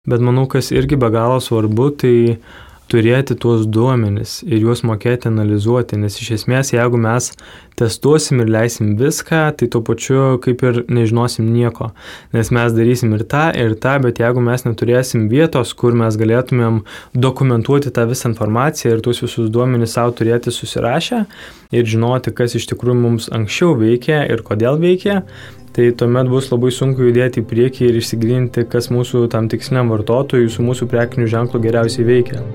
Bet manau, kas irgi be galo svarbu, tai turėti tuos duomenis ir juos mokėti analizuoti, nes iš esmės, jeigu mes testuosim ir leisim viską, tai tuo pačiu kaip ir nežinosim nieko, nes mes darysim ir tą, bet jeigu mes neturėsim vietos, kur mes galėtumėm dokumentuoti tą visą informaciją ir tuos visus duomenis savo turėti susirašę ir žinoti, kas iš tikrųjų mums anksčiau veikia ir kodėl veikia, tai tuomet bus labai sunku judėti į priekį ir išsigilinti, kas mūsų tam tiksliniam vartotojui su mūsų prekiniu ženklu geriausiai veikia.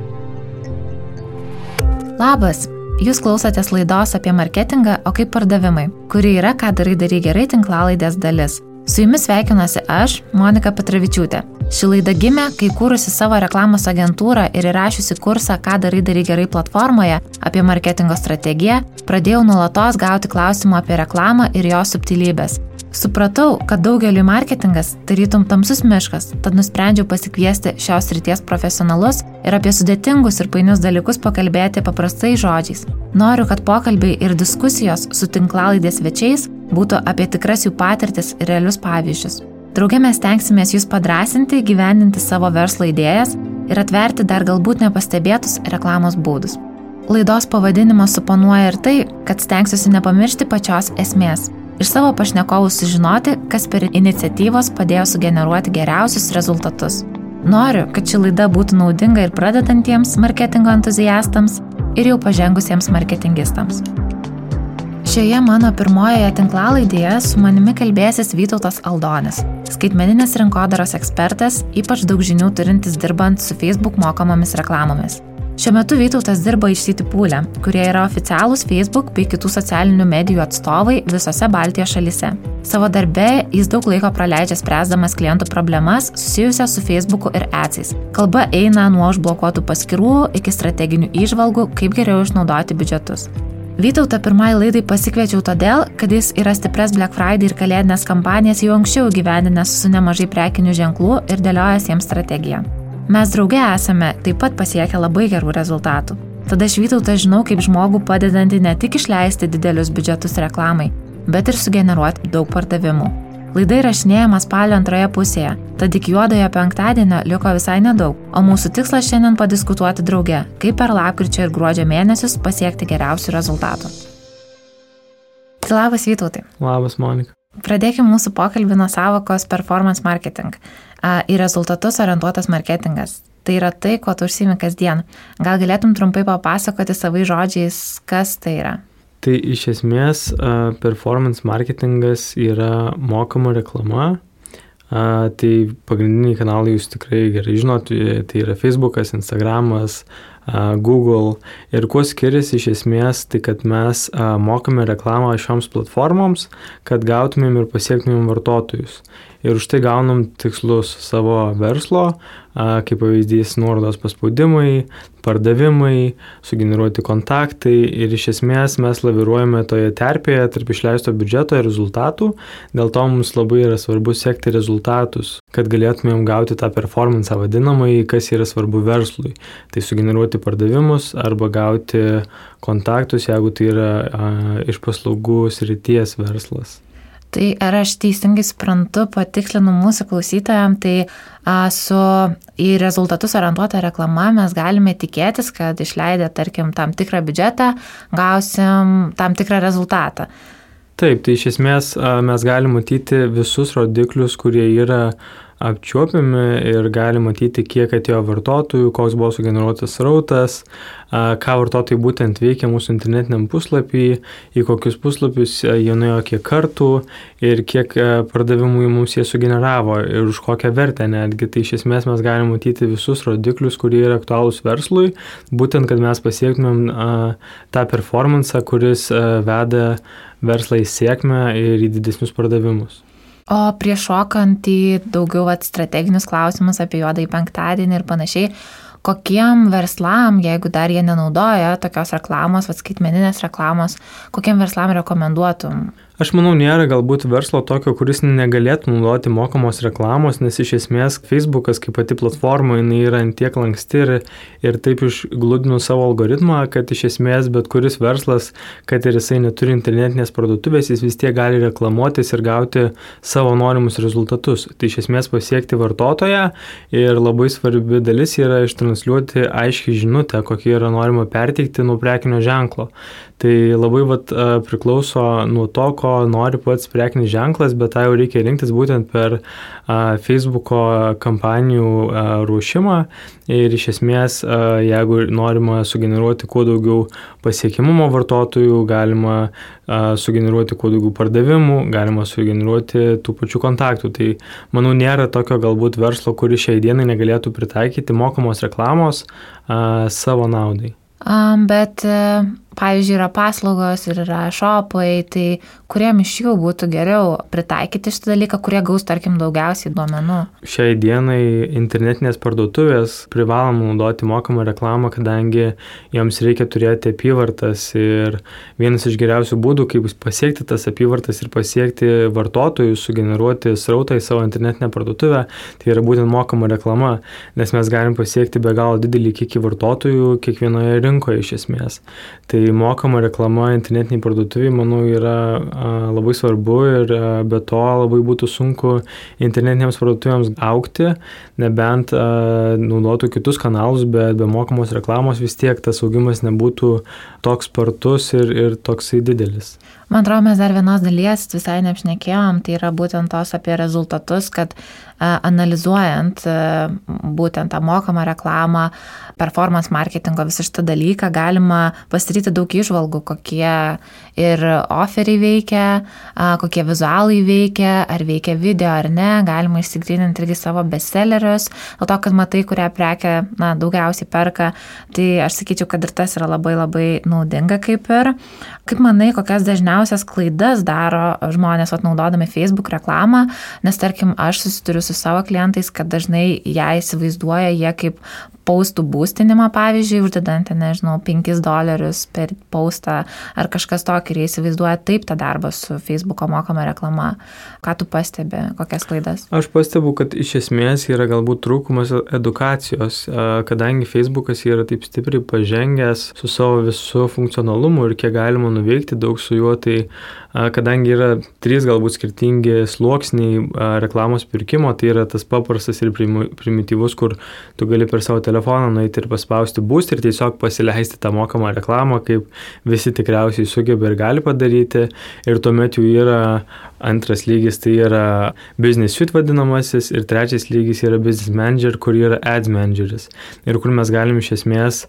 Labas! Jūs klausotės laidos apie marketingą, o kaip pardavimai, kuri yra Ką darai gerai tinklalaidės dalis. Su jumis sveikinuosi aš, Monika Petravičiūtė. Ši laida gimė, kai kūrusi savo reklamos agentūrą ir įrašiusi kursą Ką darai gerai platformoje apie marketingo strategiją, pradėjau nuolatos gauti klausimų apie reklamą ir jos subtilybės. Supratau, kad daugeliui marketingas tarytum tamsus miškas, tad nusprendžiau pasikviesti šios srities profesionalus ir apie sudėtingus ir painius dalykus pakalbėti paprastais žodžiais. Noriu, kad pokalbiai ir diskusijos su tinklalaidės svečiais būtų apie tikras jų patirtis ir realius pavyzdžius. Drauge mes stengsimės jūs padrąsinti, gyvendinti savo verslo idėjas ir atverti dar galbūt nepastebėtus reklamos būdus. Laidos pavadinimas suponuoja ir tai, kad stengsiuosi nepamiršti pačios esmės. Iš savo pašnekovų sužinoti, kas per iniciatyvos padėjo sugeneruoti geriausius rezultatus. Noriu, kad ši laida būtų naudinga ir pradedantiems marketingo entuziastams ir jau pažengusiems marketingistams. Šioje mano pirmojoje tinklalaidėje su manimi kalbėsis Vytautas Aldonis, skaitmeninės rinkodaros ekspertas, ypač daug žinių turintis dirbant su Facebook mokamomis reklamomis. Šiuo metu Vytautas dirba iš Citypool, kurie yra oficialūs Facebook bei kitų socialinių medijų atstovai visose Baltijos šalyse. Savo darbe jis daug laiko praleidžia spręsdamas klientų problemas susijusias su Facebooku ir adsais. Kalba eina nuo užblokuotų paskyrų iki strateginių įžvalgų, kaip geriau išnaudoti biudžetus. Vytautą pirmai laidai pasikviečiau todėl, kad jis yra stipres Black Friday ir kalėdinės kampanijas jau anksčiau įgyvendinęs su nemažai prekinių ženklų ir dėliojęs jiems strategiją. Mes drauge esame taip pat pasiekę labai gerų rezultatų. Tada aš Vytautą žinau kaip žmogų padedantį ne tik išleisti didelius biudžetus reklamai, bet ir sugeneruoti daug pardavimų. Laida įrašinėjama spalio antroje pusėje, tad iki juodojo penktadienio liko visai nedaug, o mūsų tikslas šiandien padiskutuoti drauge, kaip per lapkričio ir gruodžio mėnesius pasiekti geriausių rezultatų. Labas Vytautai. Labas Monika. Pradėkime mūsų pokalbį nuo sąvokos performance marketing. Į rezultatus orientuotas marketingas. Tai yra tai, ko tu užsiimi kasdien. Gal galėtum trumpai papasakoti savais žodžiais, kas tai yra? Tai iš esmės performance marketingas yra mokama reklama. Tai pagrindiniai kanalai jūs tikrai gerai žinot, tai yra Facebookas, Instagramas, Google. Ir kuo skiriasi iš esmės, tai kad mes mokame reklamą šioms platformoms, kad gautumėm ir pasiektumėm vartotojus. Ir už tai gaunam tikslus savo verslo, kaip pavyzdys nuorodos paspaudimai, pardavimai, sugeneruoti kontaktai ir iš esmės mes laviruojame toje terpėje tarp išleisto biudžeto ir rezultatų. Dėl to mums labai yra svarbu sekti rezultatus, kad galėtumėm gauti tą performance vadinamąjį, kas yra svarbu verslui. Tai sugeneruoti pardavimus arba gauti kontaktus, jeigu tai yra iš paslaugų srities verslas. Tai ar aš teisingai suprantu, patikslinu mūsų klausytojams, tai į rezultatus orientuotą reklamą mes galime tikėtis, kad išleidę, tarkim, tam tikrą biudžetą, gausim tam tikrą rezultatą. Taip, tai iš esmės mes galime matyti visus rodiklius, kurie yra apčiuopiami ir gali matyti, kiek atėjo vartotojų, koks buvo sugeneruotas srautas, ką vartotojai būtent veikia mūsų internetiniam puslapį, į kokius puslapius jie nuėjo kiek kartų ir kiek pardavimų mums jie sugeneravo ir už kokią vertę netgi. Tai iš esmės mes galime matyti visus rodiklius, kurie yra aktualūs verslui, būtent, kad mes pasiektumėm tą performance, kuris veda verslą į sėkmę ir į didesnius pardavimus. O prieš šokant į daugiau strateginius klausimus apie juodąjį penktadienį ir panašiai, kokiem verslam, jeigu dar jie nenaudoja tokios reklamos, skaitmeninės reklamos, kokiem verslam rekomenduotum? Aš manau, nėra galbūt verslo tokio, kuris negalėtų naudoti mokamos reklamos, nes iš esmės Facebookas kaip pati platforma, jinai yra tiek lanksti ir taip išgludino savo algoritmą, kad iš esmės bet kuris verslas, kad ir jisai neturi internetinės parduotuvės, jis vis tiek gali reklamuotis ir gauti savo norimus rezultatus. Tai iš esmės pasiekti vartotoją ir labai svarbi dalis yra ištransliuoti aiškiai žinutę, kokie yra norima perteikti nuo prekinio ženklo. Tai labai priklauso nuo to, ko nori pats prekinis ženklas, bet tą jau reikia rinktis būtent per Facebooko kampanijų ruošimą ir iš esmės, jeigu norima sugeneruoti kuo daugiau pasiekimumo vartotojų, galima sugeneruoti kuo daugiau pardavimų, galima sugeneruoti tų pačių kontaktų. Tai manau, nėra tokio galbūt verslo, kuris šiai dienai negalėtų pritaikyti mokamos reklamos savo naudai. Bet, pavyzdžiui, yra paslaugos ir yra shopai, tai kuriem iš jų būtų geriau pritaikyti šitą dalyką, kurie gaus, tarkim, daugiausiai duomenų? Šiai dienai internetinės parduotuvės privalom naudoti mokamą reklamą, kadangi joms reikia turėti apyvartas ir vienas iš geriausių būdų, kaip pasiekti tas apyvartas ir pasiekti vartotojus, sugeneruoti srautą į savo internetinę parduotuvę, tai yra būtent mokama reklama, nes mes galim pasiekti be galo didelį kiekį vartotojų kiekvienoje rinkoje iš esmės. Tai mokama reklama internetiniai parduotuviai, manau, yra labai svarbu ir be to labai būtų sunku internetinėms parduotuvėms augti, nebent naudotų kitus kanalus, bet be mokamos reklamos vis tiek tas augimas nebūtų toks spartus ir toksai didelis. Man atrodo, mes dar vienos dalies visai neapšnekėjom, tai yra būtent tos apie rezultatus, kad analizuojant būtent tą mokamą reklamą, performance marketingo visą šitą dalyką, galima pasidaryti daug įžvalgų, kokie ir offeriai veikia, kokie vizualai veikia, ar veikia video ar ne, galima išsigryninti irgi savo bestsellerius, dėl to, kad matai, kurią prekę daugiausiai perka, tai aš sakyčiau, kad ir tas yra labai labai naudinga kaip ir. Kaip manai, kokias dažniausias klaidas daro žmonės naudodami Facebook reklamą, nes tarkim, aš susiduriu su savo klientais, kad dažnai ją įsivaizduoja jie kaip paustų būstinimą, pavyzdžiui, uždedant, nežinau, $5 per paustą ar kažkas tokį ir jie įsivaizduoja taip tą darbą su Facebooko mokama reklama. Ką tu pastebi, kokias klaidas? Aš pastebu, kad iš esmės yra galbūt trūkumas edukacijos, kadangi Facebookas yra taip stipriai pažengęs su savo visų funkcionalumu ir kiek galima nuveikti daug su juo, tai kadangi yra 3 galbūt skirtingi sluoksniai reklamos pirkimo, tai yra tas paprastas ir primityvus, kur tu gali per savo telefoną nueiti ir paspausti boost ir tiesiog pasileisti tą mokamą reklamą, kaip visi tikriausiai sugeba ir gali padaryti. Ir tuomet jau yra antras lygis, tai yra business suite vadinamasis, ir trečias lygis yra business manager, kur yra ads manageris. Ir kur mes galim iš esmės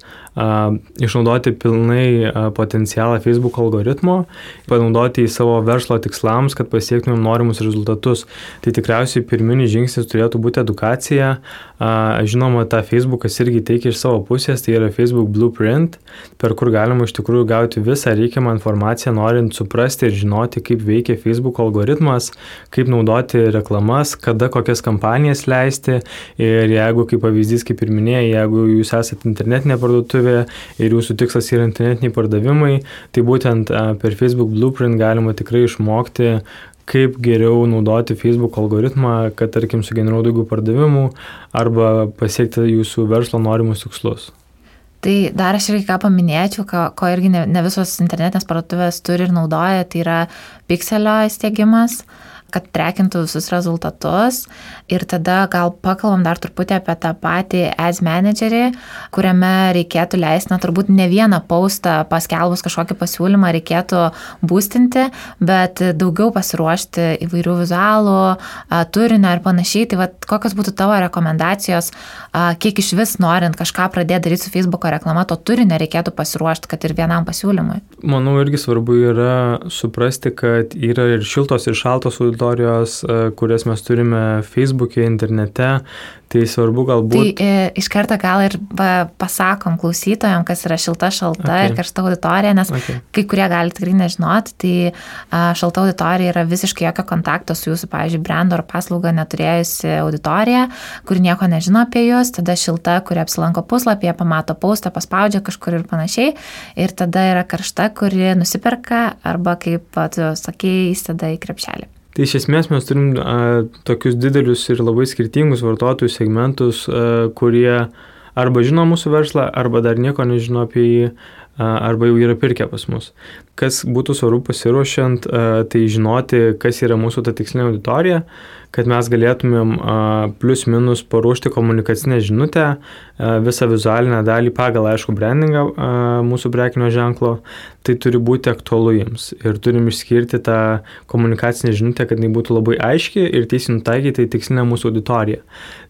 išnaudoti pilnai potencialą Facebook algoritmo, panaudoti į savo verslo tikslams, kad pasiektumėm norimus rezultatus. Tai tikriausiai pirminis žingsnis turėtų būti edukacija. Žinoma, tą Facebookas irgi teikia iš savo pusės, tai yra Facebook Blueprint, per kur galima iš tikrųjų gauti visą reikiamą informaciją, norint suprasti ir žinoti, kaip veikia Facebook algoritmas, kaip naudoti reklamas, kada kokias kampanijas leisti. Ir jeigu, kaip pavyzdys, kaip ir minėjai, jeigu jūs esate internetinė parduotuvė ir jūsų tikslas yra internetiniai pardavimai, tai būtent per Facebook Blueprint galima tikrai išmokti, kaip geriau naudoti Facebook algoritmą, kad, tarkim, sugeneruoti daugiau pardavimų arba pasiekti jūsų verslo norimus tikslus. Tai dar aš irgi ką paminėčiau, ko irgi ne visos internetinės parduotuvės turi ir naudoja, tai yra pikselio įstiegimas, kad trekintų visus rezultatus. Ir tada gal pakalbam dar truputį apie tą patį ads managerį, kuriame reikėtų leisti, turbūt ne vieną postą paskelbus kažkokį pasiūlymą reikėtų boostinti, bet daugiau pasiruošti įvairių vizualų, turinio ir panašiai. Tai kokios būtų tavo rekomendacijos, kiek iš vis norint kažką pradėti daryti su Facebooko reklama, to turinio reikėtų pasiruošti, kad ir vienam pasiūlymui? Manau, irgi svarbu yra suprasti, kad yra ir šiltos ir šaltos auditorijos, kurias mes turime Facebook'e, internete. Tai svarbu galbūt... Tai iš karto gal ir pasakom klausytojams, kas yra šilta, šalta ir karšta auditorija, nes kai kurie gali tikrai nežinoti, tai šalta auditorija yra visiškai jokio kontakto su jūsų, pavyzdžiui, brendo ar paslaugą neturėjusi auditorija, kuri nieko nežino apie jūs, tada šilta, kuri apsilanko puslapyje, pamato postą, paspaudžia kažkur ir panašiai, ir tada yra karšta, kuri nusiperka arba, kaip tu sakei, įstada į krepšelį. Tai iš esmės mes turim tokius didelius ir labai skirtingus vartotojų segmentus, kurie arba žino mūsų verslą, arba dar nieko nežino apie jį, arba jau yra pirkę pas mus. Kas būtų svarbu pasiruošiant, tai žinoti, kas yra mūsų ta tikslinė auditorija, kad mes galėtumėm plus minus paruošti komunikacinę žinutę, visą vizualinę dalį pagal, aišku, brandingą mūsų prekinio ženklo, tai turi būti aktualu jiems. Ir turim išskirti tą komunikacinę žinutę, kad jinai būtų labai aiški ir tiesiai nutaikyti į tikslinę mūsų auditoriją.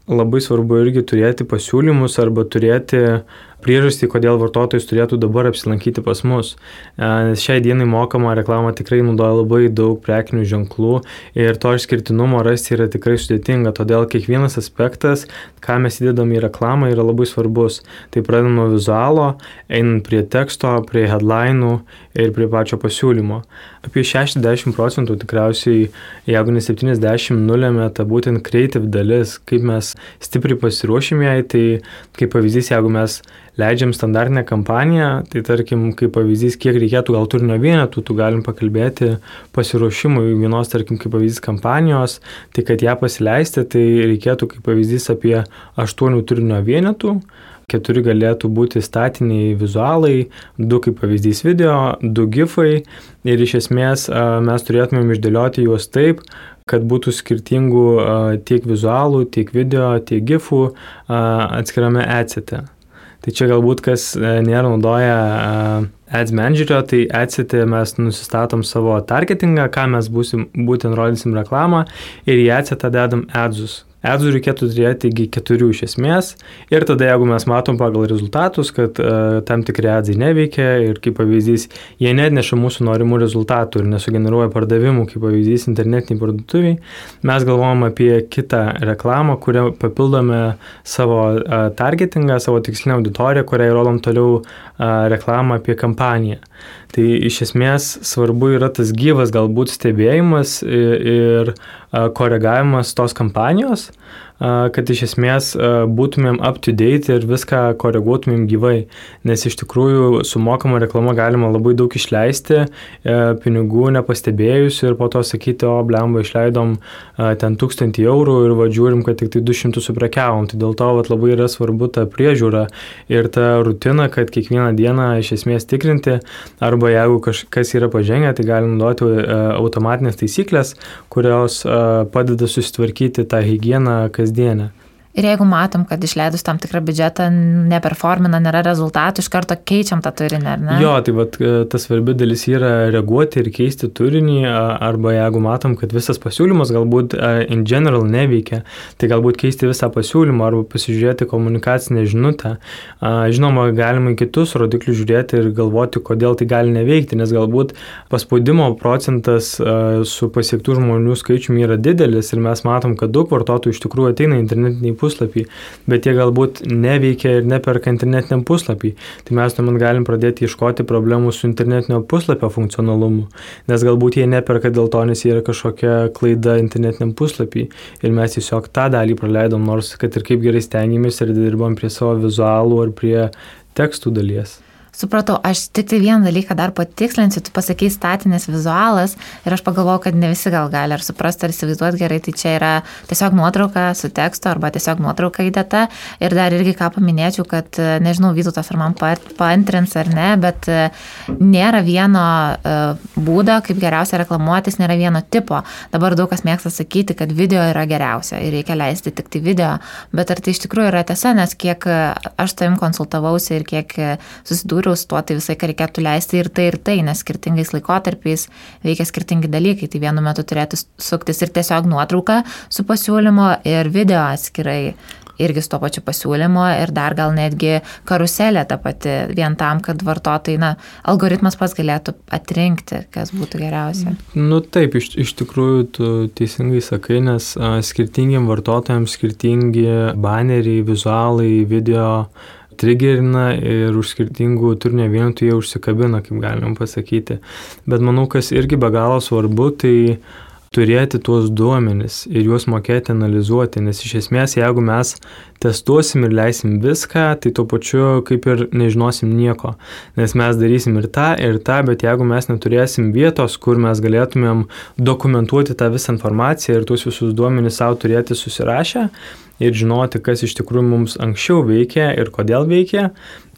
Labai svarbu irgi turėti pasiūlymus arba turėti priežastį, kodėl vartotojas turėtų dabar apsilankyti pas mus. Nes šiai dienai mokama reklama tikrai naudoja labai daug prekinių ženklų ir to išskirtinumo rasti yra tikrai sudėtinga, todėl kiekvienas aspektas, ką mes įdedam į reklamą, yra labai svarbus. Tai pradedam nuo vizualo, einant prie teksto, prie headline'ų ir prie pačio pasiūlymo. Apie 60% tikriausiai, jeigu ne 70, nulėmė ta būtent creative dalis, kaip mes stipriai pasiruošim jai, tai kaip pavyzdys, jeigu mes leidžiam standartinę kampaniją, tai tarkim, kaip pavyzdys, kiek reikėtų gal turinio vienetų, tu galim pakalbėti pasiruošimui vienos, tarkim, kaip pavyzdys kampanijos, tai kad ją pasileisti, tai reikėtų kaip pavyzdys apie 8 turinio vienetų, 4 galėtų būti statiniai vizualai, 2 kaip pavyzdys video, 2 gifai ir iš esmės mes turėtumėm išdėlioti juos taip, kad būtų skirtingų tiek vizualų, tiek video, tiek gifų atskirame adsete. Tai čia galbūt kas nėra naudoja Ads Managerio, tai adsete mes nusistatom savo targetingą, ką mes būtent rodysim reklamą ir į adsetą dedam adsus. Adsų reikėtų turėti 4 iš esmės ir tada jeigu mes matom pagal rezultatus, kad tam tikri adsai neveikia ir kaip pavyzdys, jie neatneša mūsų norimų rezultatų ir nesugeneruoja pardavimų, kaip pavyzdys internetiniai parduotuviai, mes galvojam apie kitą reklamą, kurią papildome savo targetingą, savo tikslinę auditoriją, kuriai rodom toliau reklamą apie kampaniją. Tai iš esmės svarbu yra tas gyvas galbūt stebėjimas ir koregavimas tos kampanijos, kad iš esmės būtumėm up to date ir viską koreguotumėm gyvai, nes iš tikrųjų su mokama reklama galima labai daug išleisti, pinigų nepastebėjus ir po to sakyti, o blemba išleidom ten 1000 eurų ir žiūrim, kad tik tai 200 suprekiavom, tai dėl to labai yra svarbu ta priežiūra ir ta rutina, kad kiekvieną dieną iš esmės tikrinti, arba jeigu kažkas yra pažengę, tai galim naudoti automatinės taisyklės, kurios padeda susitvarkyti tą higieną kasdienę. Ir jeigu matom, kad išleidus tam tikrą biudžetą neperformina, nėra rezultatų, iš karto keičiam tą turinį, ar ne? Jo, tai ta svarbi dalis yra reaguoti ir keisti turinį, arba jeigu matom, kad visas pasiūlymas galbūt in general neveikia, tai galbūt keisti visą pasiūlymą arba pasižiūrėti komunikacinę žinutę. Žinoma, galima į kitus rodiklius žiūrėti ir galvoti, kodėl tai gali neveikti, nes galbūt paspaudimo procentas su pasiektų žmonių skaičiumi yra didelis ir mes matom, kad daug vartotojų iš tikrųjų ateina internetiniai puslapį, bet jie galbūt neveikia ir neperka internetiniam puslapį. Tai mes tuomet galim pradėti ieškoti problemų su internetinio puslapio funkcionalumu, nes galbūt jie neperka dėl to, nes yra kažkokia klaida internetiniam puslapį ir mes tiesiog tą dalį praleidom, nors kad ir kaip gerai stengiamės ir dirbam prie savo vizualų ar prie tekstų dalies. Supratau, aš tik tai vieną dalyką dar patikslinsiu, tu pasakei statinės vizualas ir aš pagalvojau, kad ne visi gal gali ar suprasti, ar įsivaizduoti gerai, tai čia yra tiesiog nuotrauka su tekstu arba tiesiog nuotrauka įdėta ir dar irgi ką paminėčiau, kad nežinau, Vytautas ar man paantrins ar ne, bet nėra vieno būdo, kaip geriausia reklamuotis, nėra vieno tipo. Dabar daug kas mėgsta sakyti, kad video yra geriausia ir reikia leisti tik tai video, bet ar tai iš tikrųjų yra tiesa, nes kiek aš tavim konsultavausi ir kiek susidūriau su tuo, tai visai, ką reikėtų leisti ir tai, nes skirtingais laikotarpiais veikia skirtingi dalykai. Tai vienu metu turėtų suktis ir tiesiog nuotrauka su pasiūlymo ir video atskirai. irgi su to pačiu pasiūlymu ir dar gal netgi karuselė ta pati vien tam, kad vartotojai, algoritmas pats galėtų atrinkti, kas būtų geriausia. Taip, iš tikrųjų tu teisingai sakai, nes skirtingiem vartotojams skirtingi baneriai, vizualai, video trigerina ir už skirtingų turinio vienetų jie užsikabina, kaip galim pasakyti. Bet manau, kas irgi be galo svarbu, tai turėti tuos duomenis ir juos mokėti analizuoti, nes iš esmės, jeigu mes testuosim ir leisim viską, tai tuo pačiu kaip ir nežinosim nieko, nes mes darysim ir tą, bet jeigu mes neturėsim vietos, kur mes galėtumėm dokumentuoti tą visą informaciją ir tuos visus duomenis savo turėti susirašę ir žinoti, kas iš tikrųjų mums anksčiau veikia ir kodėl veikia,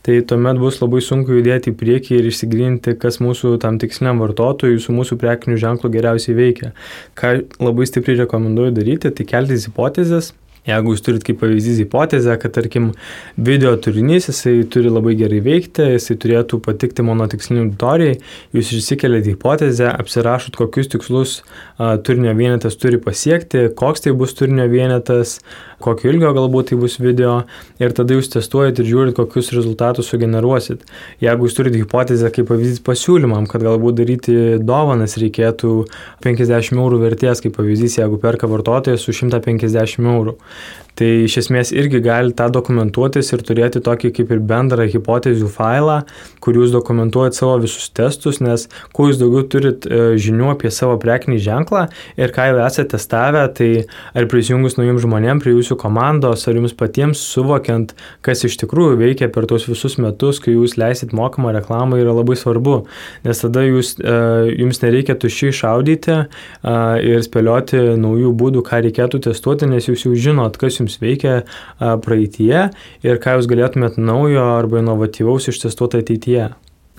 tai tuomet bus labai sunku judėti į priekį ir išsigryninti, kas mūsų tam tiksliniam vartotojui su mūsų prekiniu ženklu geriausiai veikia. Ką labai stipriai rekomenduoju daryti, tai keltis hipotezes. Jeigu jūs turit kaip pavyzdys hipotezę, kad tarkim video turinys, jisai turi labai gerai veikti, jisai turėtų patikti mano tiksliniai auditorijai, jūs išsikeliate hipotezę, apsirašot, kokius tikslus turinio vienetas turi pasiekti, koks tai bus turinio vienetas, kokio ilgio galbūt tai bus video ir tada jūs testuojat ir žiūrit, kokius rezultatus sugeneruosit. Jeigu jūs turite hipotezę kaip pavyzdys pasiūlymam, kad galbūt daryti dovanas reikėtų 50 eurų vertės, kaip pavyzdys, jeigu perka vartotojas su 150 eurų. Tai iš esmės irgi gali tą dokumentuotis ir turėti tokį kaip ir bendrą hipotezių failą, kur jūs dokumentuojat savo visus testus, nes kuo jūs daugiau turit žinių apie savo prekinį ženklą ir ką jau esate testavę, tai ar prisijungus naujiem žmonėm prie jūsų komandos, ar jums patiems suvokiant, kas iš tikrųjų veikia per tos visus metus, kai jūs leisit mokamą reklamą, yra labai svarbu, nes tada jums nereikia tuščiai šaudyti ir spėlioti naujų būdų, ką reikėtų testuoti, nes jūs jau žinot, kas jums veikia praeityje ir ką jūs galėtumėt naujo arba inovatyvaus ištestuoti ateityje.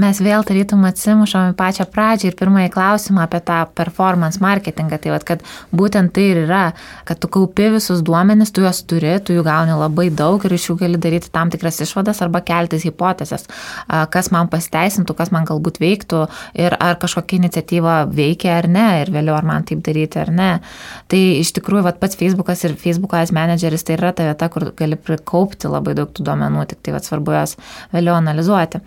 Mes vėl tarytum atsimušam į pačią pradžią ir pirmąjį klausimą apie tą performance marketingą. Tai kad būtent tai ir yra, kad tu kaupi visus duomenis, tu juos turi, tu jų gauni labai daug ir iš jų gali daryti tam tikras išvadas arba keltis hipotezes, kas man pasiteisintų, kas man galbūt veiktų ir ar kažkokia iniciatyva veikia ar ne ir vėliau ar man taip daryti ar ne. Tai iš tikrųjų pats Facebookas ir Facebook Ads Manageris tai yra ta vieta, kur gali prikaupti labai daug tų duomenų, tik tai svarbu juos vėliau analizuoti.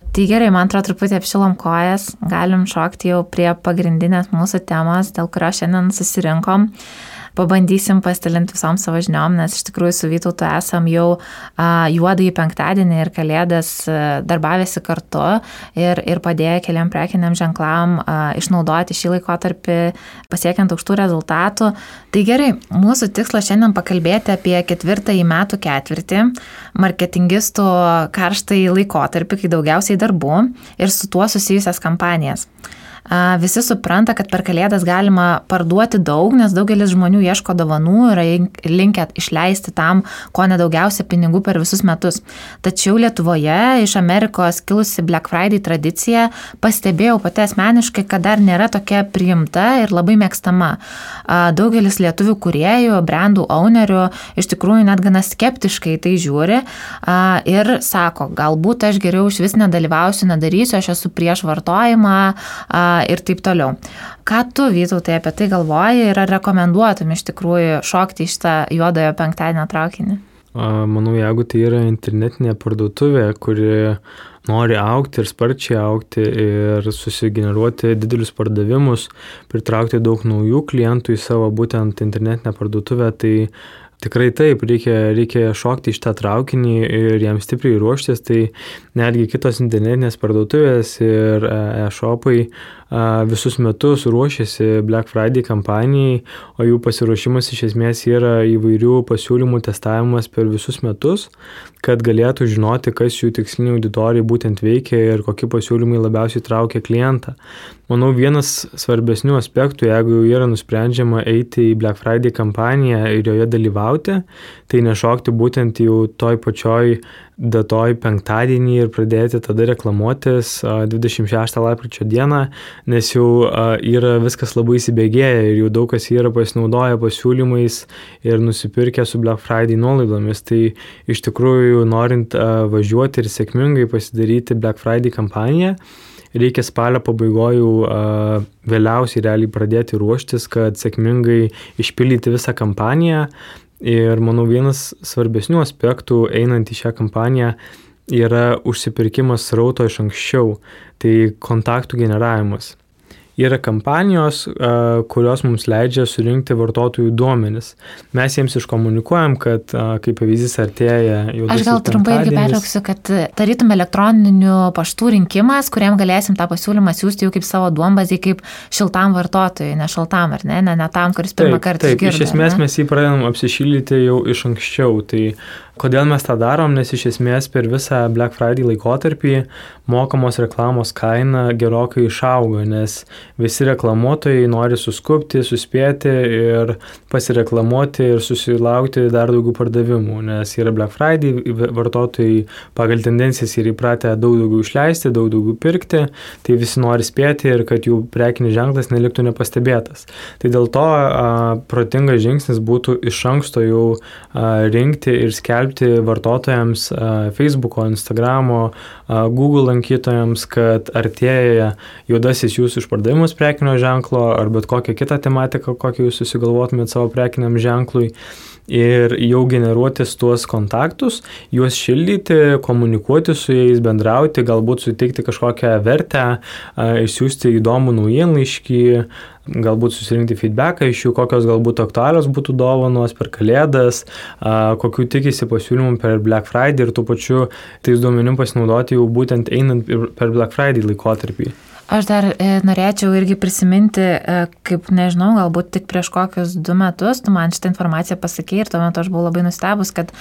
Tai gerai, man atrodo, truputį apšilom kojas, galim šokti jau prie pagrindinės mūsų temos, dėl kurio šiandien susirinkom. Pabandysim pasidalinti visom savo žiniom, nes iš tikrųjų su Vytautu esam jau juodąjį penktadienį ir kalėdas darbavėsi kartu ir padėję keliam prekiniam ženklam išnaudoti šį laikotarpį pasiekiant aukštų rezultatų. Tai gerai, mūsų tikslas šiandien pakalbėti apie 4. metų ketvirtį, marketingistų karštąjį laikotarpį, kai daugiausiai darbų ir su tuo susijusias kampanijas. Visi supranta, kad per kalėdas galima parduoti daug, nes daugelis žmonių ieško dovanų ir linkę išleisti tam, ko nedaugiausia pinigų per visus metus. Tačiau Lietuvoje iš Amerikos kilusi Black Friday tradicija pastebėjau pati asmeniškai, kad dar nėra tokia priimta ir labai mėgstama. Daugelis lietuvių kūrėjų, brandų ownerių iš tikrųjų net gana skeptiškai tai žiūri ir sako, galbūt aš geriau iš vis nedalyvausiu, nedarysiu, aš esu prieš vartojimą ir taip toliau. Ką tu, Vytautai, apie tai galvoji ir ar rekomenduotum iš tikrųjų šokti iš tą juodojo penktadienio traukinį? Manau, jeigu tai yra internetinė parduotuvė, kuri nori augti ir sparčiai augti ir susigeneruoti didelius pardavimus, pritraukti daug naujų klientų į savo būtent internetinę parduotuvę, tai tikrai taip, reikia šokti iš tą traukinį ir jam stipriai ruoštis, tai netgi kitos internetinės parduotuvės ir e-shopai visus metus ruošiasi Black Friday kampanijai, o jų pasiruošimas iš esmės yra įvairių pasiūlymų testavimas per visus metus, kad galėtų žinoti, kas jų tiksliniai auditorijai būtent veikia ir kokie pasiūlymai labiausiai traukia klientą. Manau, vienas svarbesnių aspektų, jeigu jau yra nusprendžiama eiti į Black Friday kampaniją ir joje dalyvauti, tai nešokti būtent jau toj pačioj datoj penktadienį ir pradėti tada reklamuotis 26 lapkričio dieną, nes jau yra viskas labai įsibėgėję ir jau daug kas yra pasinaudoję pasiūlymais ir nusipirkę su Black Friday nuolaidomis. Tai iš tikrųjų, norint važiuoti ir sėkmingai pasidaryti Black Friday kampaniją, reikia spalio pabaigojų vėliausiai realiai pradėti ruoštis, kad sėkmingai išpildyti visą kampaniją. Ir manau, vienas svarbesnių aspektų einant į šią kampaniją yra užsipirkimas srauto iš anksčiau, tai kontaktų generavimas. Yra kampanijos, kurios mums leidžia surinkti vartotojų duomenis. Mes jiems iškomunikuojam, kad kaip pavyzdys artėja juodasis penktadienis. Aš gal trumpai irgi pertrauksiu, kad tarytum elektroninių paštų rinkimas, kuriam galėsim tą pasiūlymą siūsti jau kaip savo duombazį, kaip šiltam vartotojui, ne šaltam, ar ne tam, kuris pirmą kartą išgirdo. Iš esmės mes jį pradedam apsišildyti jau iš anksčiau. Tai kodėl mes tą darom? Nes iš esmės per visą Black Friday laikotarpį mokamos reklamos kaina gerokai išaugo, nes visi reklamuotojai nori suskubti, suspėti ir pasireklamuoti ir susilaukti dar daugiau pardavimų, nes yra Black Friday, vartotojai pagal tendencijas yra įpratę daug daugiau išleisti, daug daugiau pirkti, tai visi nori spėti ir kad jų prekinis ženklas neliktų nepastebėtas. Tai dėl to protingas žingsnis būtų iš anksto jau rinkti ir skelbti vartotojams Facebooko, Instagramo, Google lankytojams, kad artėja juodasis jūsų išpardavimus prekinio ženklo ar bet kokią kitą tematiką, kokią jūs susigalvotumėt savo prekiniam ženklui. Ir jau generuotis tuos kontaktus, juos šildyti, komunikuoti su jais, bendrauti, galbūt suteikti kažkokią vertę, išsiųsti įdomų naujienlaiškį, galbūt susirinkti feedbacką iš jų, kokios galbūt aktualios būtų dovanos per Kalėdas, kokių tikisi pasiūlymų per Black Friday ir tuo pačiu tais duomenim pasinaudoti jau būtent einant per Black Friday laikotarpį. Aš dar norėčiau irgi prisiminti, kaip, nežinau, galbūt tik prieš kokius 2 metus tu man šitą informaciją pasakei ir tuo metu aš buvau labai nustebus, kad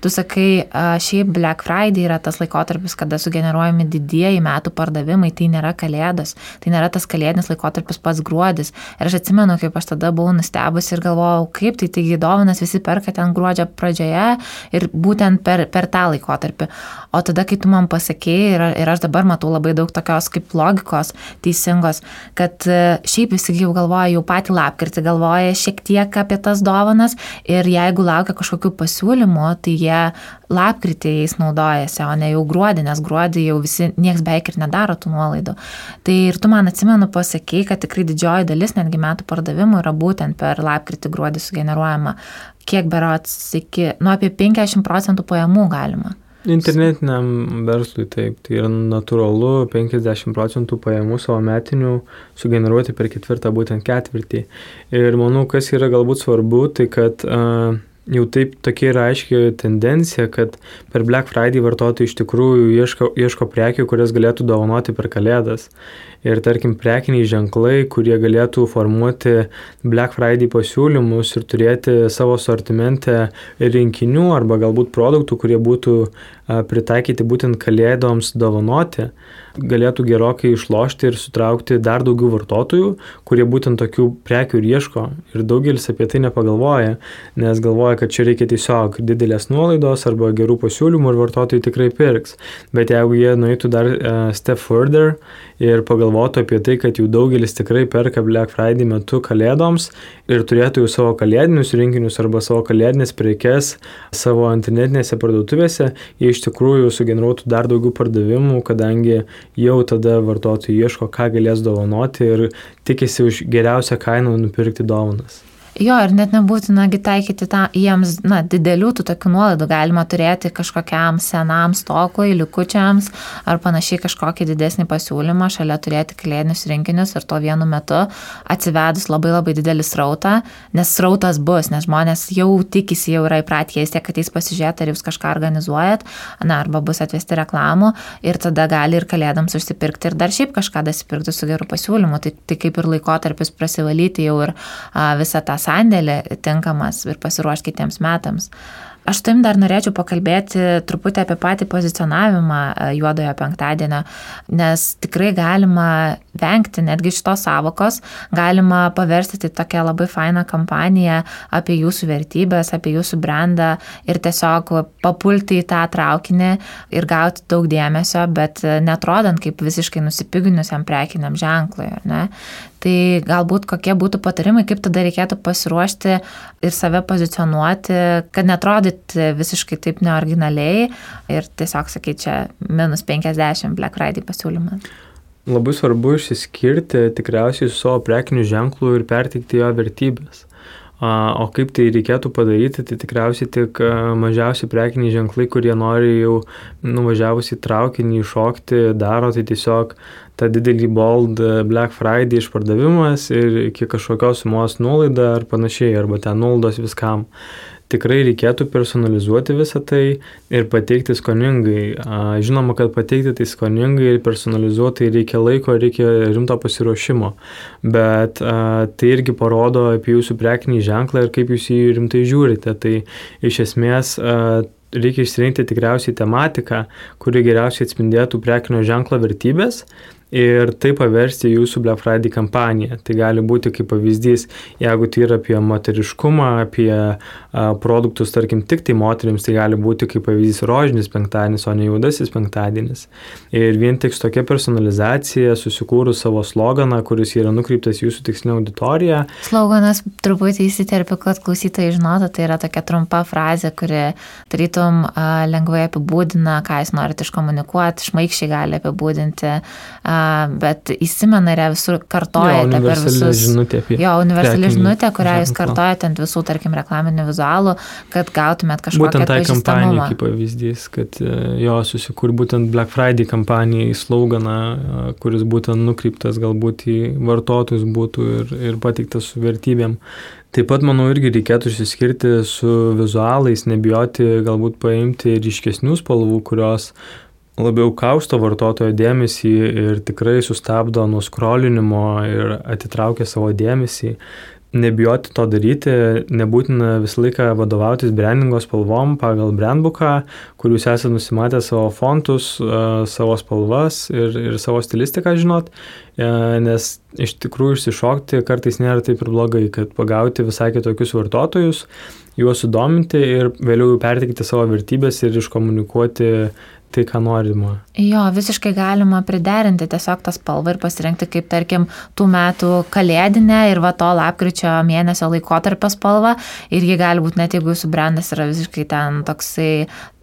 tu sakai, šiaip Black Friday yra tas laikotarpis, kada sugeneruojami didieji metų pardavimai, tai nėra Kalėdos, tai nėra tas kalėdinis laikotarpis pats gruodis. Ir aš atsimenu, kaip aš tada buvau nustebus ir galvojau, kaip taigi dovanas visi perka ten gruodžio pradžioje ir būtent per tą laikotarpį. O tada, kai tu man pasakei ir aš dabar matau labai daug tokios kaip logikos teisingos, kad šiaip visi jau galvoja, jau patį lapkritį galvoja šiek tiek apie tas dovanas ir jeigu laukia kažkokių pasiūlymų, tai jie lapkritį jais naudojasi, o ne jau gruodį, nes gruodį jau visi nieks beveik ir nedaro tų nuolaidų. Tai ir tu man atsimenu pasakei, kad tikrai didžioji dalis netgi metų pardavimų yra būtent per lapkritį gruodį sugeneruojama. Kiek berods apie 50% pajamų galima. Internetiniam verslui taip, tai yra natūralu 50% pajamų savo metinių sugeneruoti per ketvirtą būtent ketvirtį. Ir manau, kas yra galbūt svarbu, tai kad jau taip tokia yra aiški tendencija, kad per Black Friday vartotojai iš tikrųjų ieško prekių, kurias galėtų dovanoti per Kalėdas. Ir tarkim, prekiniai ženklai, kurie galėtų formuoti Black Friday pasiūlymus ir turėti savo sortimente rinkinių arba galbūt produktų, kurie būtų pritaikyti būtent Kalėdoms dovanoti, galėtų gerokai išlošti ir sutraukti dar daugiau vartotojų, kurie būtent tokių prekių ir ieško. Ir daugelis apie tai nepagalvoja, nes galvoja, kad čia reikia tiesiog didelės nuolaidos arba gerų pasiūlymų ir vartotojai tikrai pirks. Bet jeigu jie nueitų dar step further ir pagalvotų apie tai, kad jau daugelis tikrai perka Black Friday metu Kalėdoms ir turėtų jau savo kalėdinius rinkinius arba savo kalėdinės prekes savo internetinėse parduotuvėse, jie iš tikrųjų sugeneruotų dar daugiau pardavimų, kadangi jau tada vartotojai ieško, ką galės dovanoti ir tikisi už geriausią kainą nupirkti dovanas. Jo, ir net nebūtina taikyti jiems didelių tų tokių nuolaidų, galima turėti kažkokiam senam stokui, likučiams ar panašiai kažkokį didesnį pasiūlymą, šalia turėti kalėdinius rinkinius ir to vienu metu atsivedus labai labai didelį srautą, nes srautas bus, nes žmonės jau tikisi, jau yra įpratę, jie tiek ateis pasižiūrėti, ar jūs kažką organizuojat, arba bus atvesti reklamų ir tada gali ir Kalėdams užsipirkti ir dar šiaip kažką dasipirkti su geru pasiūlymu, tai kaip ir laikotarpis prasivalyti jau ir visą tą sandėlį tinkamas ir pasiruošti kitiems metams. Aš tam dar norėčiau pakalbėti truputį apie patį pozicionavimą juodojo penktadienio, nes tikrai galima vengti netgi šitos savokos, galima paversti tai tokią labai fainą kampaniją apie jūsų vertybės, apie jūsų brandą ir tiesiog papulti į tą traukinį ir gauti daug dėmesio, bet netrodant kaip visiškai nusipiginusiam prekiniam ženklui, ar ne? Tai galbūt kokie būtų patarimai, kaip tada reikėtų pasiruošti ir save pozicionuoti, kad netrodyt visiškai taip neoriginaliai ir tiesiog sakyti, čia -50 Black Friday pasiūlymas. Labai svarbu išsiskirti tikriausiai su savo prekiniu ženklu ir perteikti jo vertybės. O kaip tai reikėtų padaryti, tai tikriausiai tik mažiausi prekiniai ženklai, kurie nori jau nuvažiavus į traukinį iššokti, daro tai tiesiog tą didelį bold Black Friday išpardavimas ir iki kažkokios sumos nuolaida ar panašiai, arba ten nuolaidos viskam. Tikrai reikėtų personalizuoti visą tai ir pateikti skoningai. Žinoma, kad pateikti tai skoningai ir personalizuoti reikia laiko, reikia rimto pasiruošimo, bet tai irgi parodo apie jūsų prekinį ženklą ir kaip jūs jį rimtai žiūrite. Tai iš esmės reikia išsirinkti tikriausiai tematiką, kuri geriausiai atspindėtų prekinio ženklo vertybės ir tai paversti jūsų Black Friday kampaniją. Tai gali būti kaip pavyzdys, jeigu tai yra apie moteriškumą, apie produktus, tarkim, tik tai moterims, tai gali būti kaip pavyzdys rožinis penktadienis, o ne juodasis penktadienis. Ir vien tik tokia personalizacija, susikūrus savo sloganą, kuris yra nukreiptas jūsų tikslinę auditoriją. Sloganas truputį įsiterpiu, kad klausytojai žinotų, tai yra tokia trumpa frazė, kuri tarytum lengvai apibūdina, ką jūs norite iškomunikuoti, šmaikščiai gali apibūdinti, bet įsimena ir visur kartojate per visus. Universali žinutė, kurią jūs kartojate ant visų, tarkim, reklaminių vizualų, kad gautumėt kažkokią būtent tai pažįstamumą. kampanija kaip pavyzdys, kad susikūr būtent Black Friday kampanijai sloganą, kuris būtent nukreiptas galbūt į vartotojus būtų ir pateiktas su vertybėm. Taip pat, manau, irgi reikėtų išsiskirti su vizualais, nebijoti galbūt paimti ryškesnių spalvų, kurios labiau kausto vartotojo dėmesį ir tikrai sustabdo nuo skrolinimo ir atitraukia savo dėmesį. Nebijoti to daryti, nebūtina visą laiką vadovautis brandingo spalvom pagal brandbooką, kur jūs esate nusimatę savo fontus, savo spalvas ir savo stilistiką žinot, nes iš tikrųjų išsišokti kartais nėra taip ir blogai, kad pagauti visai kitokius vartotojus, juos sudominti ir vėliau perteikti savo vertybės ir iškomunikuoti tai, ką norima. Jo, visiškai galima priderinti tiesiog tą spalvą ir pasirinkti kaip, tarkim, tų metų kalėdinę ir va to lapkričio mėnesio laikotarpio spalvą ir ji gali būti net jeigu jūsų brandas yra visiškai ten toksai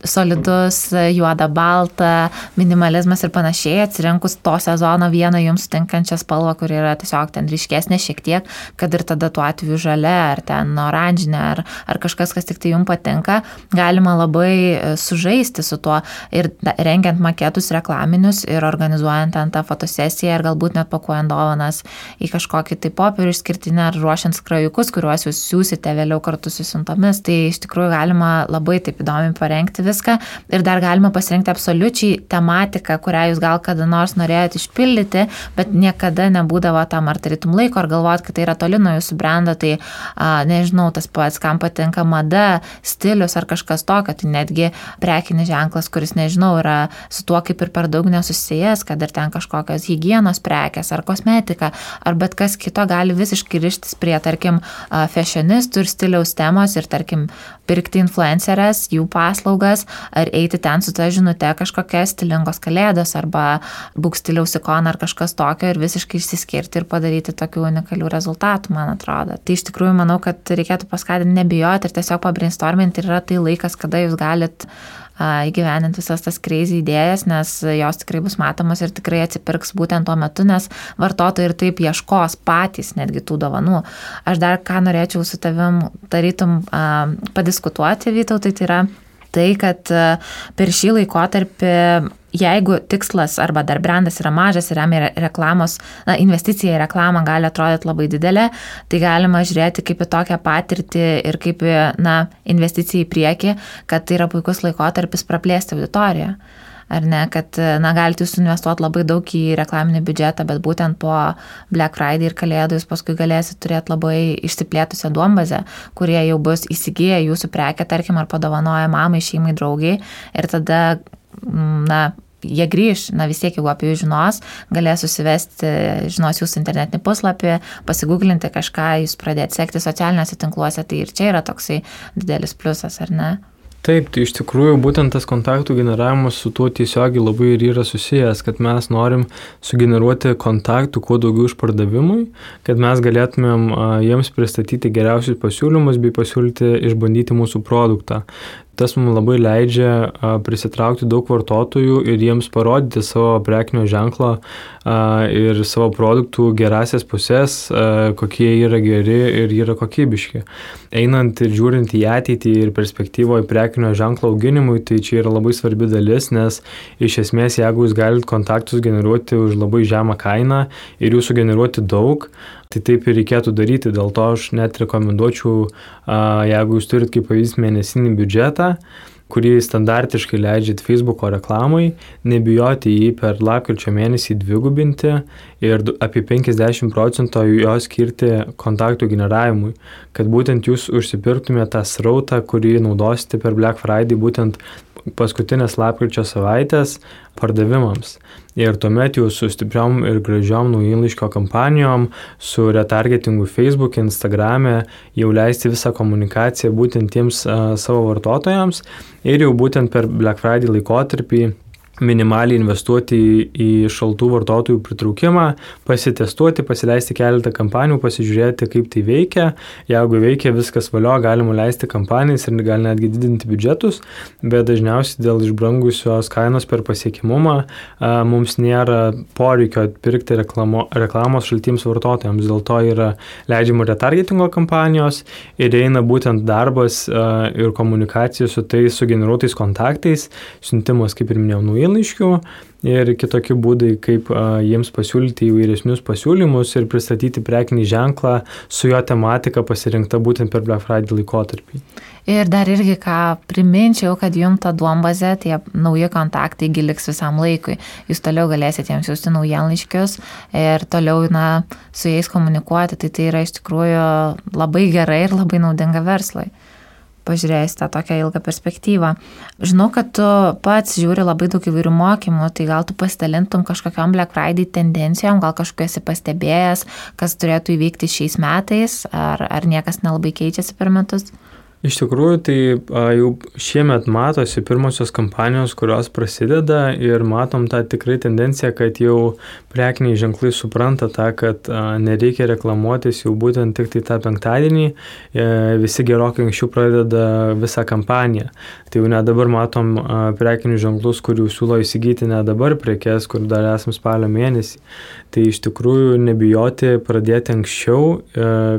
solidus, juoda, balta, minimalizmas ir panašiai, atsirinkus to sezono vieną jums tinkančią spalvą, kuri yra tiesiog ten ryškesnė šiek tiek, kad ir tada tuo atveju žalia ar ten oranžinė ar kažkas, kas tik tai jums patinka, galima labai sužaisti su tuo ir rengiant maketus reklaminius ir organizuojant ten tą fotosesiją ir galbūt net pakuojant dovanas į kažkokį tai popierių išskirtinį ar ruošiant skrajukus, kuriuos jūs siūsite vėliau kartu su siuntomis. Tai iš tikrųjų galima labai taip įdomiai parengti viską ir dar galima pasirinkti absoliučiai tematiką, kurią jūs gal kada nors norėjote išpildyti, bet niekada nebūdavo tam ar tarytum laiko, ar galvojat, kad tai yra toli nuo jūsų brando, tai nežinau, tas pats, kam patinka mada, stilius ar kažkas tokio, tai netgi prekinis ženklas, kuris, nežinau, yra su tuo kaip ir per daug nesusijęs, kad ir ten kažkokios higienos prekės ar kosmetika, ar bet kas kito gali visiškai rištis prie, tarkim, fashionistų ir stiliaus temos ir, tarkim, pirkti influencerės, jų paslaugas, ar eiti ten su ta žinute kažkokias stilingos kalėdos arba būk stiliaus ikona ar kažkas tokio ir visiškai išsiskirti ir padaryti tokių unikalių rezultatų, man atrodo. Tai iš tikrųjų manau, kad reikėtų paskatinti nebijoti ir tiesiog pabrainstorminti ir yra tai laikas, kada jūs galit įgyveninti visas tas crazy idėjas, nes jos tikrai bus matomos ir tikrai atsipirks būtent tuo metu, nes vartotojai ir taip ieškos patys netgi tų dovanų. Aš dar ką norėčiau su tavim tarytum padiskutuoti, Vytautai, tai yra tai, kad per šį laikotarpį, jeigu tikslas arba dar brandas yra mažas ir remia reklamos, investicija į reklamą gali atrodyti labai didelė, tai galima žiūrėti kaip į tokią patirtį ir kaip į investiciją į priekį, kad tai yra puikus laikotarpis praplėsti auditoriją. Ar ne, kad galite jūs investuoti labai daug į reklaminį biudžetą, bet būtent po Black Friday ir kalėdų jūs paskui galėsite turėti labai išsiplėtusią duombazę, kurie jau bus įsigiję jūsų prekę, tarkim, ar padovanoja mamai, šeimai, draugiai ir tada, jie grįž, vis tiek, jeigu apie jų žinos, galės susivesti, žinos jūsų internetinį puslapį, pasigūglinti kažką, jūs pradėti sekti socialiniuose tinkluose, tai ir čia yra toksai didelis pliusas, ar ne? Taip, tai iš tikrųjų būtent tas kontaktų generavimas su tuo tiesiogiai labai ir yra susijęs, kad mes norim sugeneruoti kontaktų kuo daugiau išpardavimui, kad mes galėtumėm jiems pristatyti geriausius pasiūlymus bei pasiūlyti išbandyti mūsų produktą. Tas mums labai leidžia prisitraukti daug vartotojų ir jiems parodyti savo prekinio ženklo ir savo produktų gerasias pusės, kokie yra geri ir yra kokybiški. Einant ir žiūrint į ateitį ir perspektyvoje prekinio ženklo auginimui, tai čia yra labai svarbi dalis, nes iš esmės, jeigu jūs galite kontaktus generuoti už labai žemą kainą ir jų sugeneruoti daug, tai taip ir reikėtų daryti. Dėl to aš net rekomenduočiau, jeigu jūs turit kaip pavyzdys mėnesinį biudžetą, kurį standartiškai leidžiat Facebooko reklamai, nebijoti jį per lapkričio mėnesį dvigubinti ir apie 50% jo skirti kontaktų generavimui, kad būtent jūs užsipirktumėte tą srautą, kurį naudosite per Black Friday, būtent paskutinės lapkričio savaitės pardavimams. Ir tuomet jau su stipriom ir gražiom naujienlaiškio kampanijom, su retargetingu Facebook, Instagrame jau leisti visą komunikaciją būtent tiems savo vartotojams ir jau būtent per Black Friday laikotarpį minimaliai investuoti į šaltų vartotojų pritraukimą, pasitestuoti, pasileisti keletą kampanijų, pasižiūrėti, kaip tai veikia. Jeigu veikia viskas valio, galima leisti kampanijas ir gal netgi didinti biudžetus, bet dažniausiai dėl išbrangusios kainos per pasiekimumą mums nėra poreikio atpirkti reklamos šaltiems vartotojams. Dėl to yra leidžiama retargetingo kampanijos ir eina būtent darbas ir komunikacija su tais sugeneruotais kontaktais, siuntimas, kaip ir minėjau, naujienlaiškių ir kitokie būdai, kaip jiems pasiūlyti įvairesnius pasiūlymus ir pristatyti prekinį ženklą su jo tematika pasirinkta būtent per Black Friday laikotarpį. Ir dar irgi ką priminčiau, kad jums ta duombazė, tie nauji kontaktai liks visam laikui. Jūs toliau galėsite jiems siųsti naujienlaiškius ir toliau su jais komunikuoti. Tai yra iš tikrųjų labai gerai ir labai naudinga verslui. Pažiūrėjus tą tokią ilgą perspektyvą. Žinau, kad tu pats žiūri labai daug įvairių mokymų, tai gal tu pasidalintum kažkokiam Black Friday tendencijom, gal kažkokiu esi pastebėjęs, kas turėtų įvykti šiais metais, ar niekas nelabai keičiasi per metus? Iš tikrųjų, tai jau šiemet matosi pirmosios kampanijos, kurios prasideda ir matom tą tikrai tendenciją, kad jau prekiniai ženklai supranta tą, kad nereikia reklamuotis jau būtent tik tai tą penktadienį, visi gerokai anksčiau pradeda visą kampaniją. Tai jau net dabar matom prekinius ženklus, kurių siūlo įsigyti net dabar prekes, kur dar esam spalio mėnesį. Tai iš tikrųjų nebijoti pradėti anksčiau,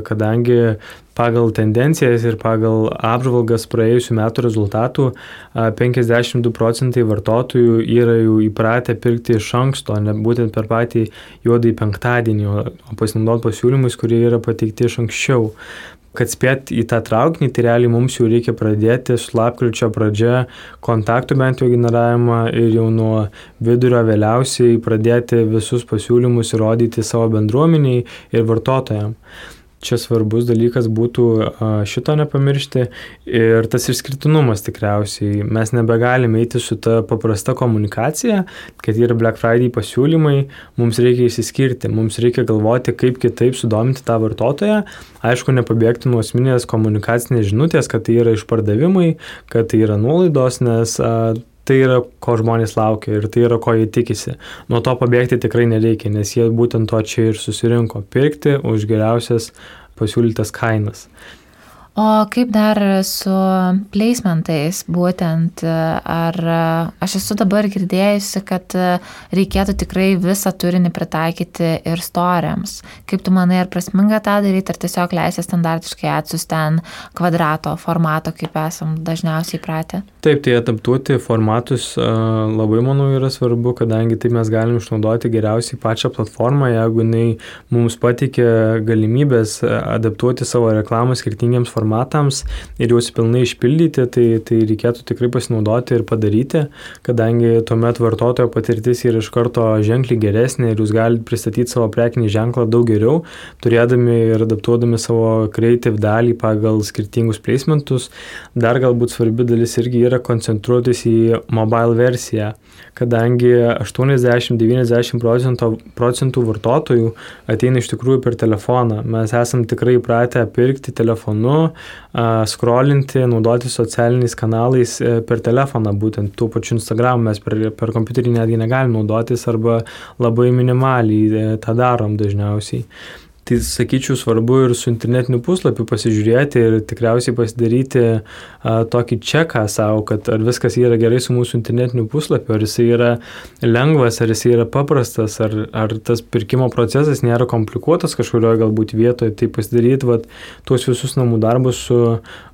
kadangi pagal tendencijas ir pagal apžvalgas praėjusių metų rezultatų 52% vartotojų yra jau įpratę pirkti iš anksto, ne būtent per patį juodąjį penktadienį, o pasinaudoti pasiūlymais, kurie yra pateikti iš anksčiau. Kad spėt į tą traukinį, tai realiai mums jau reikia pradėti su lapkričio pradžia kontaktų bent jau generavimą ir jau nuo vidurio vėliausiai pradėti visus pasiūlymus įrodyti savo bendruomeniai ir vartotojams. Čia svarbus dalykas būtų šito nepamiršti ir tas išskirtinumas tikriausiai. Mes nebegalime eiti su ta paprasta komunikacija, kad yra Black Friday pasiūlymai, mums reikia išsiskirti, mums reikia galvoti, kaip kitaip sudominti tą vartotoją. Aišku, nepabėgti nuo asmeninės komunikacinės žinutės, kad tai yra išpardavimai, kad tai yra nuolaidos, nes tai yra, ko žmonės laukia ir tai yra, ko jie tikisi. Nuo to pabėgti tikrai nereikia, nes jie būtent to čia ir susirinko – pirkti už geriausias pasiūlytas kainas. O kaip dar su placementais būtent, ar aš esu dabar girdėjusi, kad reikėtų tikrai visą turinį pritaikyti ir storiams. Kaip tu manai, ar prasminga tą daryti, ar tiesiog leisi standartiškai atsiųsti ten kvadrato formato, kaip esam dažniausiai pratę? Taip, tai adaptuoti formatus labai, manau, yra svarbu, kadangi taip mes galim išnaudoti geriausiai pačią platformą, jeigu jinai mums pateikia galimybės adaptuoti savo reklamą skirtingiems formatams ir juos pilnai išpildyti, tai reikėtų tikrai pasinaudoti ir padaryti, kadangi tuomet vartotojo patirtis yra iš karto ženkliai geresnė ir jūs galite pristatyti savo prekinį ženklą daug geriau, turėdami ir adaptuodami savo creative dalį pagal skirtingus placementus. Dar galbūt svarbi dalis irgi yra koncentruotis į mobile versiją, kadangi 80-90% vartotojų ateina iš tikrųjų per telefoną. Mes esam tikrai įpratę pirkti telefonu, scrollinti, naudoti socialiniais kanalais per telefoną, būtent tų pačių Instagram mes per kompiuterį netgi negalim naudotis arba labai minimaliai tą darom dažniausiai. Tai sakyčiau svarbu ir su internetiniu puslapiu pasižiūrėti ir tikriausiai pasidaryti tokį čeką savo, kad ar viskas yra gerai su mūsų internetiniu puslapiu, ar jisai yra lengvas, ar jisai yra paprastas, ar tas pirkimo procesas nėra komplikuotas kažkurioje galbūt vietoje. Tai pasidaryti tuos visus namų darbus su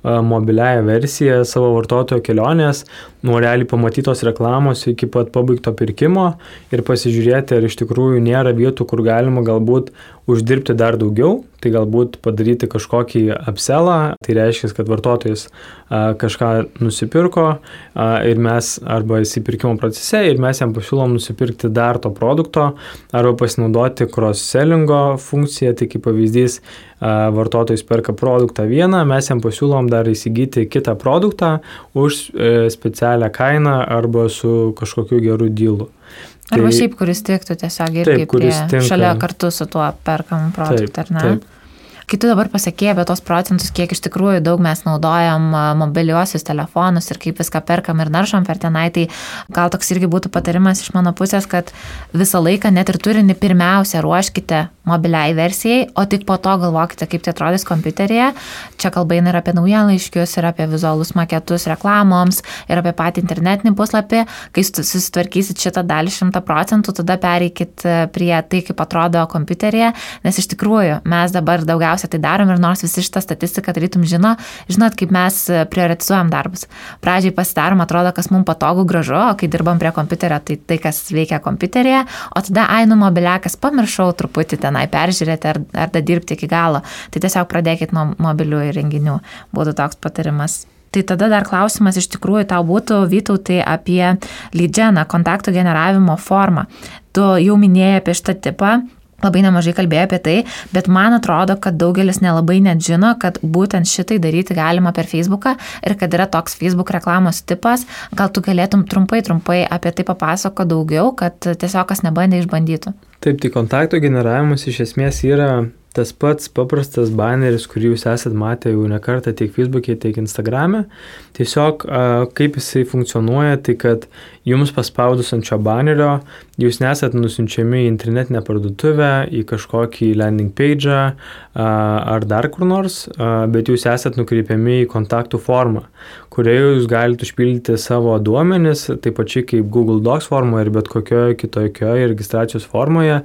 mobiliaja versija savo vartotojo kelionės, nuo realiai pamatytos reklamos iki pat pabaigto pirkimo ir pasižiūrėti, ar iš tikrųjų nėra vietų, kur galima galbūt uždirbti dar daugiau, tai galbūt padaryti kažkokį upsellą, tai reiškia, kad vartotojas kažką nusipirko ir mes arba įsipirkimo procese ir mes jam pasiūlom nusipirkti dar to produkto arba pasinaudoti cross-sellingo funkciją, tai kaip pavyzdys vartotojas perka produktą vieną, mes jam pasiūlom dar įsigyti kitą produktą už specialią kainą arba su kažkokiu geru dealu. Arba šiaip, kuris tiktų tiesiog irgi šalia kartu su tuo perkamu produktą, ar ne? Taip. Kai tu dabar pasakėjai apie tos procentus, kiek iš tikrųjų daug mes naudojam mobiliuosius telefonus ir kaip viską perkam ir naršom per tenai, tai gal toks irgi būtų patarimas iš mano pusės, kad visą laiką net ir turinį pirmiausia ruoškite mobiliai versijai, o tik po to galvokite, kaip tai atrodys kompiuteryje. Čia kalba eina ir apie naujienlaiškius, ir apie vizualus maketus reklamoms, ir apie patį internetinį puslapį. Kai susitvarkysit šitą dalį 100%, tada pereikit prie tai, kaip atrodo kompiuteryje, nes iš tikrųjų mes dabar daugiausia tai darom ir nors visi šitą statistiką tarytum žinot, kaip mes prioritizuojam darbus. Pradžiai pasidarom, atrodo, kas mums patogu, gražu, o kai dirbam prie kompiuterio, tai kas veikia kompiuteryje, o tada mobiliakas pamiršau truputį tenai peržiūrėti ar dirbti iki galo. Tai tiesiog pradėkit nuo mobilių įrenginių, būtų toks patarimas. Tai tada dar klausimas iš tikrųjų tau būtų, Vytautai, apie lead geną, kontaktų generavimo formą. Tu jau minėjai apie šitą tipą, labai nemažai kalbėjai apie tai, bet man atrodo, kad daugelis nelabai net žino, kad būtent šitai daryti galima per Facebooką ir kad yra toks Facebook reklamos tipas. Gal tu galėtum trumpai apie tai papasako daugiau, kad tiesiog kas nebandė išbandytų. Taip, tai kontakto generavimas iš esmės yra tas pats paprastas baneris, kurį jūs esat matę jau ne kartą tiek Facebook'e, tiek Instagram'e. Tiesiog kaip jisai funkcionuoja, tai kad jums paspaudus ant šio banerio, jūs nesat nusiunčiami į internetinę parduotuvę, į kažkokį landing page'ą ar dar kur nors, bet jūs esat nukreipiami į kontaktų formą, kurioje jūs galite užpildyti savo duomenis, taip pačiai kaip Google Docs formoje ir bet kokioje kitokioje registracijos formoje.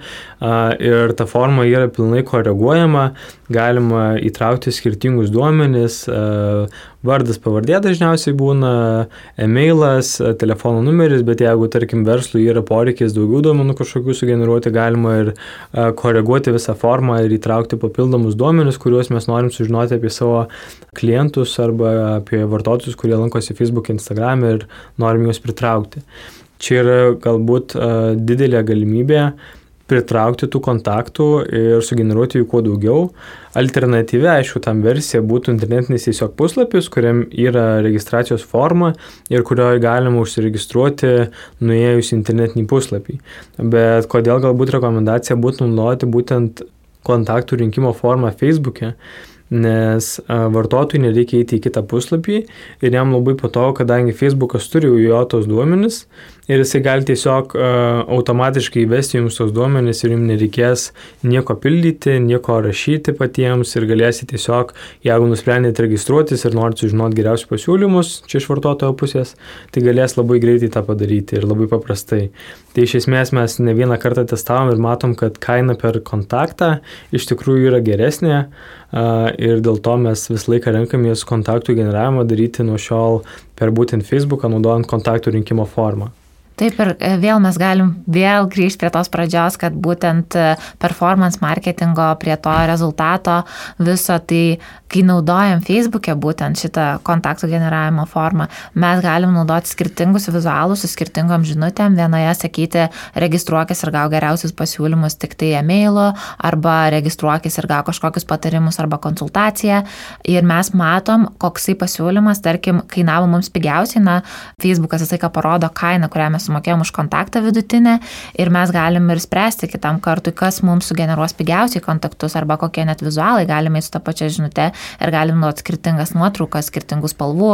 Ir ta forma yra pilnai koreguojama, galima įtraukti skirtingus duomenis, vardas, pavardė dažniausiai būna, e-mailas, telefono numeris, bet jeigu, tarkim, verslui yra poreikis daugiau duomenų kažkokių sugeneruoti, galima ir koreguoti visą formą ir įtraukti papildomus duomenis, kuriuos mes norim sužinoti apie savo klientus arba apie vartotojus, kurie lankosi Facebook, Instagram ir norim juos pritraukti. Čia yra galbūt didelė galimybė pritraukti tų kontaktų ir sugeneruoti jų kuo daugiau. Alternatyvi, aišku, tam versija būtų internetinis tiesiog puslapis, kuriam yra registracijos forma ir kurioje galima užsiregistruoti nuėjus internetinį puslapį. Bet kodėl galbūt rekomendacija būtų naudoti būtent kontaktų rinkimo formą Facebook'e, nes vartotojui nereikia eiti į kitą puslapį ir jam labai patogu, kadangi Facebookas turi jo tos duomenis ir jisai gali tiesiog automatiškai įvesti jums tos duomenis ir jums nereikės nieko pildyti, nieko rašyti patiems ir galėsite tiesiog, jeigu nusprendėte registruotis ir norite sužinoti geriausius pasiūlymus čia iš vartotojo pusės, tai galės labai greitai tą padaryti ir labai paprastai. Tai iš esmės mes ne vieną kartą testavom ir matom, kad kaina per kontaktą iš tikrųjų yra geresnė ir dėl to mes visą laiką renkamės kontaktų generavimą daryti nuo šiol per būtent Facebooką, naudojant kontaktų rinkimo formą. Taip, ir vėl mes galim grįžti prie tos pradžios, kad būtent performance marketingo prie to rezultato viso, tai kai naudojam Facebook'e būtent šitą kontaktų generavimo formą, mes galim naudoti skirtingus vizualus su skirtingom žinutėm, vienoje sakyti registruokis ir gau geriausius pasiūlymus tik tai e-mailu, arba registruokis ir gau kažkokius patarimus arba konsultaciją ir mes matom, koksai pasiūlymas, tarkim, kainavo mums pigiausiai, Facebookas visą laiką parodo kainą, kurią mes sumokėjom už kontaktą vidutinę ir mes galim ir spręsti kitam kartui, kas mums sugeneruos pigiausiai kontaktus arba kokie net vizualai, galime su tą pačią žinutę ir galim nuot skirtingas nuotraukas, skirtingų spalvų,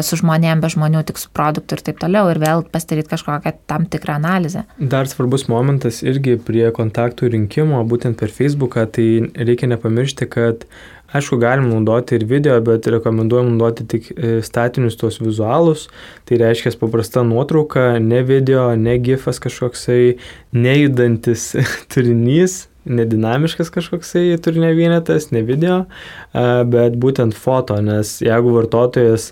su žmonėm, be žmonių, tik su produktu ir taip toliau ir vėl pasidaryti kažkokią tam tikrą analizę. Dar svarbus momentas irgi prie kontaktų rinkimo, būtent per Facebooką, tai reikia nepamiršti, kad aišku, galim naudoti ir video, bet rekomenduojam naudoti tik statinius tuos vizualus. Tai reiškia paprasta nuotrauka, ne video, ne gifas kažkoksai, nejudantis turinys, nedinamiškas kažkoksai turinio vienetas, ne video, bet būtent foto, nes jeigu vartotojas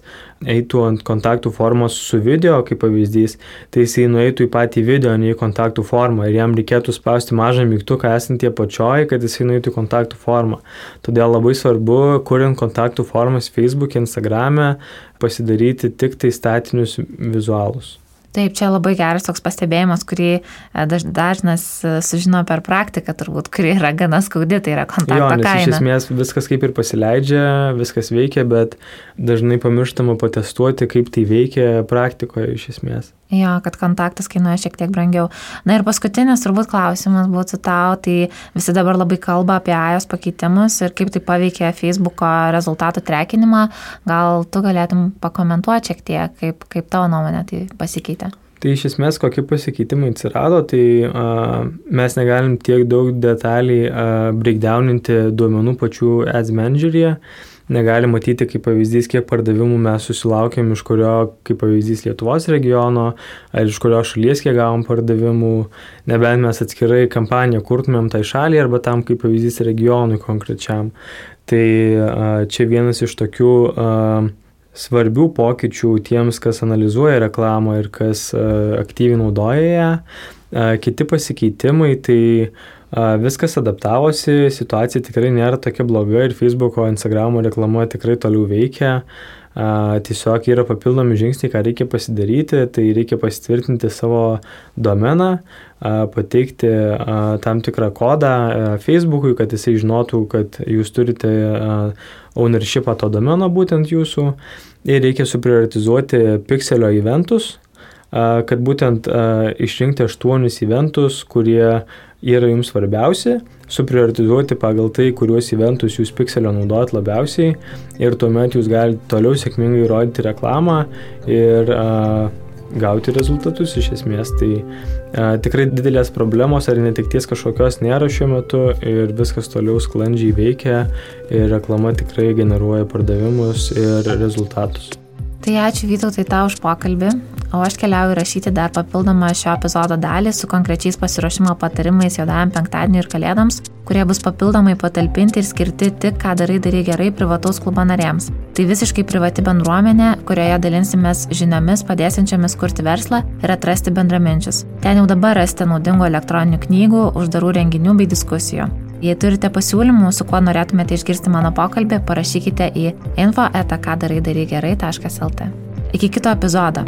eitų ant kontaktų formos su video, kaip pavyzdys, tai jisai nueitų į patį video, ne į kontaktų formą ir jam reikėtų spausti mažą mygtuką esant tie pačioj, kad jisai nueitų į kontaktų formą. Todėl labai svarbu, kuriant kontaktų formas Facebook, Instagrame, pasidaryti tik tai statinius vizualus. Taip, čia labai geras toks pastebėjimas, kurį dažnas sužino per praktiką, turbūt, kuri yra gana skaudi, tai yra kontakto kaina. Iš esmės viskas kaip ir pasileidžia, viskas veikia, bet dažnai pamirštama patestuoti, kaip tai veikia praktikoje iš esmės. Jo, kad kontaktas kainuoja šiek tiek brangiau. Na ir paskutinis turbūt klausimas būtų tau, tai visi dabar labai kalba apie iOS pakeitimus ir kaip tai paveikia Facebooko rezultatų trekinimą. Gal tu galėtum pakomentuoti šiek tiek, kaip tavo nuomonė tai pasikeitė? Tai iš esmės, kokie pasikeitimai atsirado, tai mes negalim tiek daug detaliai breakdowninti duomenų pačių Ads Manageryje. Negalim matyti, kaip pavyzdys, kiek pardavimų mes susilaukėm, iš kurio, kaip pavyzdys, Lietuvos regiono, ar iš kurio šalies kiek gavom pardavimų, nebent mes atskirai kampaniją kurtumėm tai šaliai, arba tam, kaip pavyzdys, regionui konkrečiam. Tai čia vienas iš tokių svarbių pokyčių tiems, kas analizuoja reklamą ir kas aktyviai naudoja ją. Kiti pasikeitimai, tai viskas adaptavosi, situacija tikrai nėra tokia bloga ir Facebooko, Instagramo reklama tikrai toliau veikia. Tiesiog yra papildomi žingsniai, ką reikia pasidaryti, tai reikia pasitvirtinti savo domeną, pateikti tam tikrą kodą Facebookui, kad jisai žinotų, kad jūs turite ownershipą to domeno būtent jūsų ir reikia suprioritizuoti Pixelio eventus, kad būtent išrinkti 8 eventus, kurie yra jums svarbiausi, suprioritizuoti pagal tai, kuriuos eventus jūs Pixelio naudojat labiausiai ir tuomet jūs galite toliau sėkmingai rodyti reklamą ir gauti rezultatus iš esmės. Tai tikrai didelės problemos ar netekties kažkokios nėra šiuo metu ir viskas toliau sklandžiai veikia ir reklama tikrai generuoja pardavimus ir rezultatus. Tai ačiū Vytautai tau už pokalbį, o aš keliauju rašyti dar papildomą šio epizodo dalį su konkrečiais pasiruošimo patarimais juodajam penktadieniui ir kalėdoms, kurie bus papildomai patalpinti ir skirti tik ką darai gerai privataus klubo nariams. Tai visiškai privati bendruomenė, kurioje dalinsimės žiniomis padėsiančiomis kurti verslą ir atrasti bendraminčius. Ten jau dabar rasite naudingų elektroninių knygų, uždarų renginių bei diskusijų. Jei turite pasiūlymų, su kuo norėtumėte išgirsti mano pokalbį, parašykite į info@kadarai-gerai.lt. Iki kito epizodo.